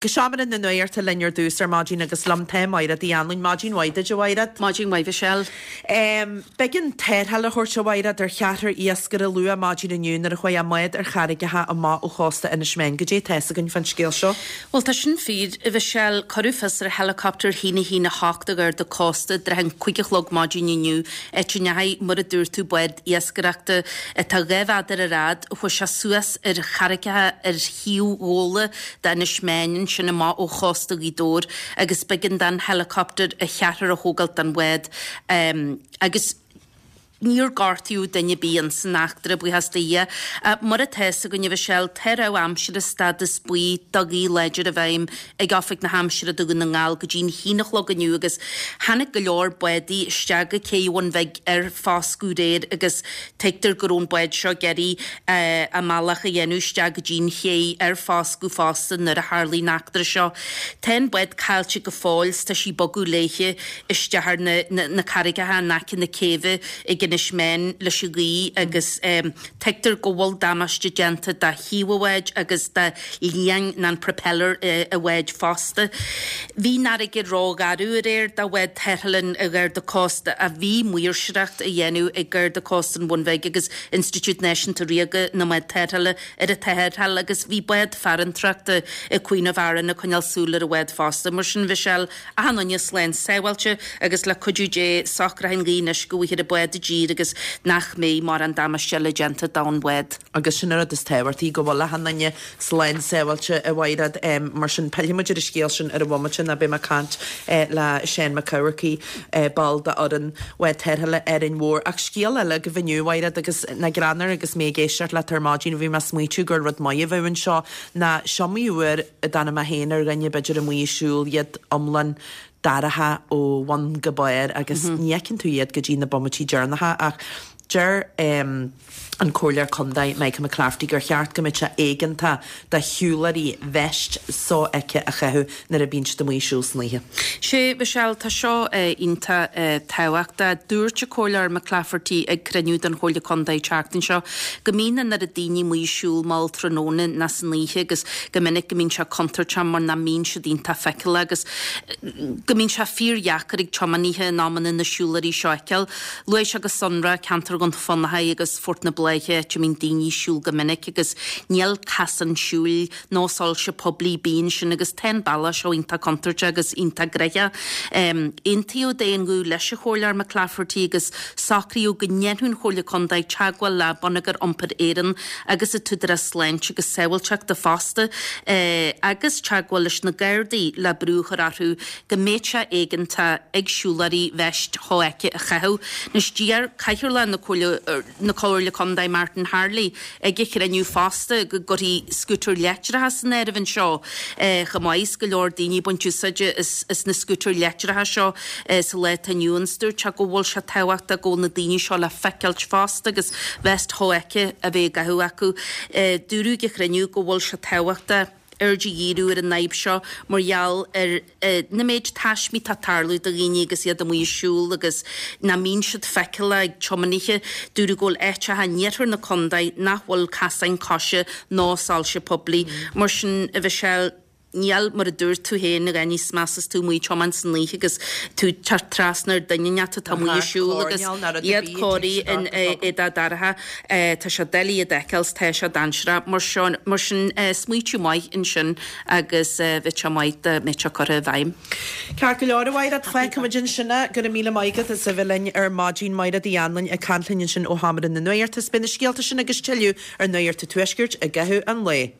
Go seomra na nuachta linn ar dtús ar maidin agus liom tá Maighread Uí Anluain. Maidin mhaith duit, a Mhaighread. Maidin mhaith, Mhichelle. B'éigean tarrtháil a thabhairt, a Mhaighread, ar cheathrar iascaire luath maidin inniu nuair a chuaigh a mbád ar charraigeacha amach ó chósta Inis Meáin. Goidé tá fhios againn fán scéal seo? Bhuel, tá sin fíor, a Mhichelle. Cuireadh fios ar helicopter 1 1 8 an Gharda Cósta i dtrátha an 5 a chlog maidin inniu, áit a ndeachaigh, mar a dúirt tú, bád iascaireachta atá 2 mhéadar ar fhad, chuaigh sé suas ar charraigeacha ar thaobh Ghabhla d'Inis Meáin ansin amach ó chósta Ghaoth Dobhair agus b'éigean don helicopter a cheathrar a thógáilt den bhád agus níor gortaíodh duine ar bith ins an eachtra, buíochas do Dhia. Mar atá fhios againn, a Mhichelle, tá rabhadh aimsire stádas buí do ghaoth láidir i bhfeidhm ag Oifig na hAimsire do Dhún na nGall go dtí'n haon a chlog inniu agus tháinig go leor bádaí isteach go cé Bhun Bhig ar foscadh aréir agus Tuigtear go raibh an bád seo ag iarraidh a mbealach a dhéanamh isteach go dtí'n ché ar foscadh fosta nuair a tharlaigh an eachtra seo. Tá an bád caillte go fóill 's tá sí ag bogadh léithe isteach ar na carraigeacha in aice na céibhe ag Inis Meáin leis an ghaoth agus tuigtear go bhfuil damáiste déanta do thaobh an bháid agus do liang nó an propeller an bháid fosta. Bhí an fharraige ró-gharbh aréir do bhád tarrthála an Gharda Cósta ach bhí maoirseoireacht á dhéanamh ag Garda Cósta an Bhun Bhig agus Institiúid Náisiúnta Ríoga na mBád Tarrthála ar an tarrtháil agus bhí bád farantóireachta ag Queen of Aran ag coinneáil súil ar an bhád fosta. Mar sin Mhichelle, achan duine slán sábháilte agus le cuidiú Dé socróidh an ghaoth anois go bhfaighfear an bád i dtír agus nach mbeidh mórán damáiste eile déanta don bhád. Agus sin an rud is tábhachtaí, go bhfuil achan duine slán sábháilte, a Mhaighread. Mar sin, pillfidh muid ar an scéal sin ar an bhomaite ná beidh mé ag caint le Seán Mac Eamharcaigh, ball d'fhoireann Bhád Tarrthála Árainn Mhór. Ach scéal eile agaibh inniu, a Mhaighread, agus nach greannmhar agus mé ag éisteacht leat ar maidin, bhí mé ag smaoitiú gur rud maith a bheadh anseo ná is iomaí uair a dtáinig mé féin ar dhuine b'fhéidir amuigh ag siúl, iad iomlán dorcha ó bhun go barr agus ní fheiceann tú iad go dtí na bomaití deireanacha ach deir an Comhairleoir Contae Michael McClafferty gur cheart go mbeadh sé éigeantach do shiúlóirí veist sofheicthe a chaitheamh nuair a bhíonn siad amuigh ag siúl san oíche. Sea, Michelle, tá seo iontach tábhachtach. Dúirt an Comhairleoir McClafferty ag cruinniú den Chomhairle Contae an tseachtain seo go mbíonn an oiread daoine amuigh ag siúl mall tráthnóna ná san oíche agus go minic go mbíonn sé contúirteach mar nach mbíonn siad iontach feiceálach agus go mbíonn sé fíordheacair ag tiománaithe in amanna na siúlóirí seo a fheiceáil. Luaigh sé go sonrach ceantar Dhún Fionnachaidh agus Phort na Bláiche, áit a mbíonn daoine ag siúl go minic agus níl casán siúil nó soilse poiblí ar bith ansin agus tá an bealach seo iontach contúirteach agus iontach gnoitheach. Aontaíodh d'aon ghuth leis an Chomhairleoir McClafferty agus socraíodh go ndéanfadh an Chomhairle Contae teagmháil le Bonneagar Iompair Éireann agus an tÚdarás Sláinte agus Sábháilteachta fosta agus teagmháil leis na Gardaí le brú a chur orthu go mbeadh sé éigeantach ag siúlóirí veist shofheicthe a chaitheamh. Anois d'iarr Cathaoirleach na Comhairle na Comhairle Contae Martin Harley ag an chruinniú fosta go gcuirfí scútair leictreacha san áireamh anseo chomh maith is go leor daoine ag baint úsáide as na scútair leictreacha seo sa lá atá inniu ann. Dúirt sé go bhfuil sé tábhachtach go bhfuil na daoine seo le feiceáilt fosta agus veist shofheicthe a bheith á gcaitheamh acu. Dúradh ag an chruinniú go bhfuil sé tábhachtach aird a dhíriú ar an fhadhb seo mar gheall ar na méid taismí atá ag tarlú do dhaoine agus iad amuigh ag siúl agus nach mbíonn siad feiceálach ag tiománaithe. Dúradh go bhfuil áiteacha in iarthar na contae nach bhfuil casáin coise ná soilse poiblí. Mar sin, a Mhichelle, níl, mar a dúirt tú féin, a dhath níos measa is tú amuigh ag tiomáint san oíche agus tú ag teacht trasna ar duine inteacht atá amuigh ag siúl agus iad cóirithe in éadaí dorcha. Tá sé doiligh iad a fheiceáil 's tá sé dainséarach. Mar sin, mar sin, smaoitiú maith ansin agus bheadh sé maith dá mbeadh sé curtha i bhfeidhm. Ceart go leor, a Mhaighread, fágfaimid ansin é. Go raibh míle maith agat as a bheith linn ar maidin. Maighread Uí Anluain ag caint linn ansin ó Sheomra na Nuachta. 'S beidh na scéalta sin agus tuilleadh ar Nuacht an Tuaiscirt i gcaitheamh an lae.